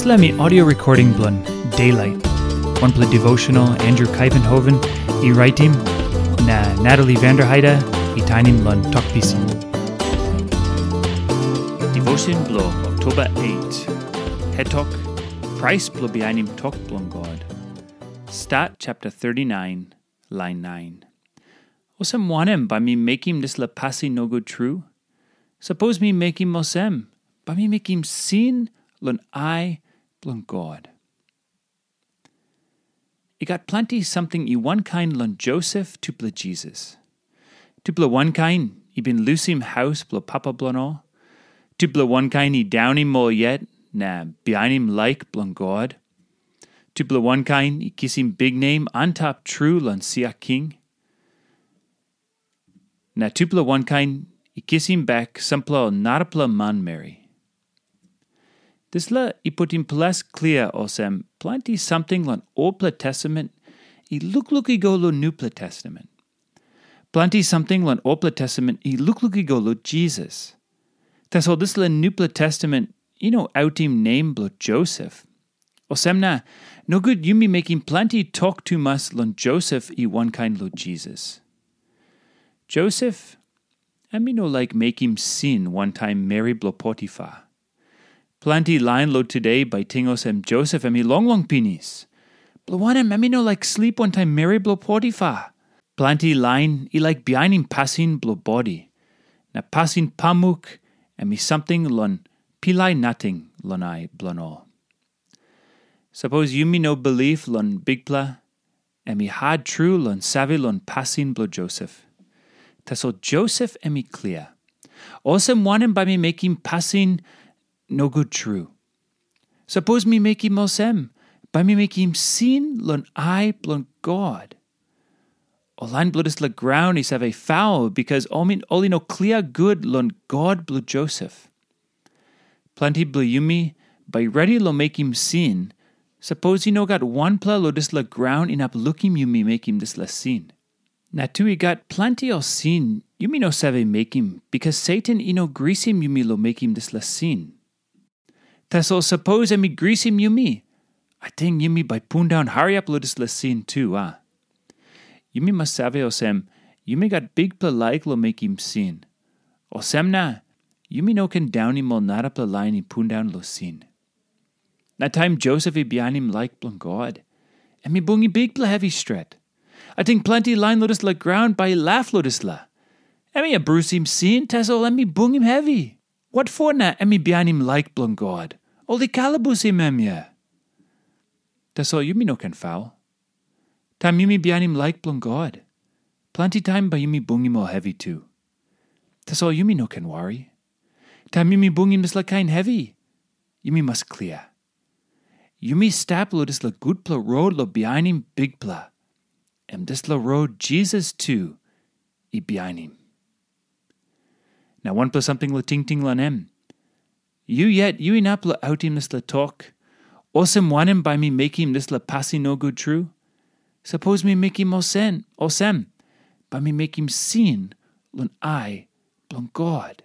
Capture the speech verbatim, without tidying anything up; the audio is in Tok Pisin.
Dispela em i audio recording bilong Daylight, wanpela devotional Andrew Kuyvenhoven i raitim, na Natalie Vanderheide i tainim long Tok Pisin. Devotion bilong Oktoba eight. Hetok, Prais bilong bihainim tok bilong God. Stat chapter thirty-nine, lain nine. Olsem wanem bai mi mekim dispela pasin nogut tru? Sapos mi mekim olsem, bai mi mekim sin long ai bilong God. I gat planti samting i wankain long Josep tupela Jisas. Tupela wankain i bin lusim haus bilong papa bilong ol. Tupela wankain i daunim ol yet na bihainim laik bilong God. Tupela wankain i kisim biknem antap tru long sia king. Na tupela wankain i kisim bek sampela ol narapela manmeri. Dispela i putim ples klia olsem planti samting long Olpela Testament i lukluk i go long Nupela Testament. Planti samting long Olpela Testament i lukluk i go long Jisas. Tasol dispela Nupela Testament i no autim nem bilong Josep. Olsem na, nogut yumi mekim planti tok tumas long Josep i wankain long Jisas. Josep, em i no laik mekim sin wantaim meri bilong Potifa. Planti lain long tude bai ting olsem Josep em i longlong pinis. Bilong wanem em i no laik slip wantaim meri bilong Potifa? Planti lain i laik bihainim pasin bilong bodi, na pasin pamuk em i samting long pilai nating long ai bilong ol. Sapos yumi no bilip long Bikpela, em i hat tru long save long pasin bilong Josep. Tasol Josep em i klia. Olsem wanem bai mi mekim pasin nogut tru? Sapos mi mekim olsem, bai mi mekim sin long ai bilong God. Ol lain bilong dispela graun i save faul bikas ol i no klia gut long God bilong Josep. Planti bilong yumi bai redi long mekim sin, sapos i no gat wanpela long dispela graun inap lukim yumi mekim dispela sin. Na tu i gat planti ol sin yumi no save mekim bikas Satan i no grisim yumi long mekim dispela sin. Tasol sapos em i grisim yumi, ating yumi bai pundaun hariap long dispela sin tu, a? Yumi mas save olsem, yumi gat bikpela laik long mekim sin. Olsem na, yumi no ken daunim ol narapela lain i pundaun long sin. Na taim Josep i bihainim laik bilong God, em i bungim bikpela hevi stret. Ating planti lain long dispela graun bai i laf long dispela. Em i abrusim sin, tasol em i bungim hevi. Watpo na em i bihainim laik bilong God? Ol i kalabusim em ya. Tasol yumi no ken faul. Taim yumi bihainim laik bilong God, planti taim bai yumi bungim ol hevi tu. Tasol yumi no ken wari. Taim yumi bungim dispela kain hevi, yumi mas klia. Yumi stap long dispela gutpela rot long bihainim Bikpela. Em dispela rot Jisas tu i bihainim. Na wanpela samting long tingting long em. Yu yet yu inap long autim dispela tok, olsem wanem bai mi mekim dispela pasin nogut tru? Sapos mi mekim olsem, olsem, bai mi mekim sin long ai bilong God.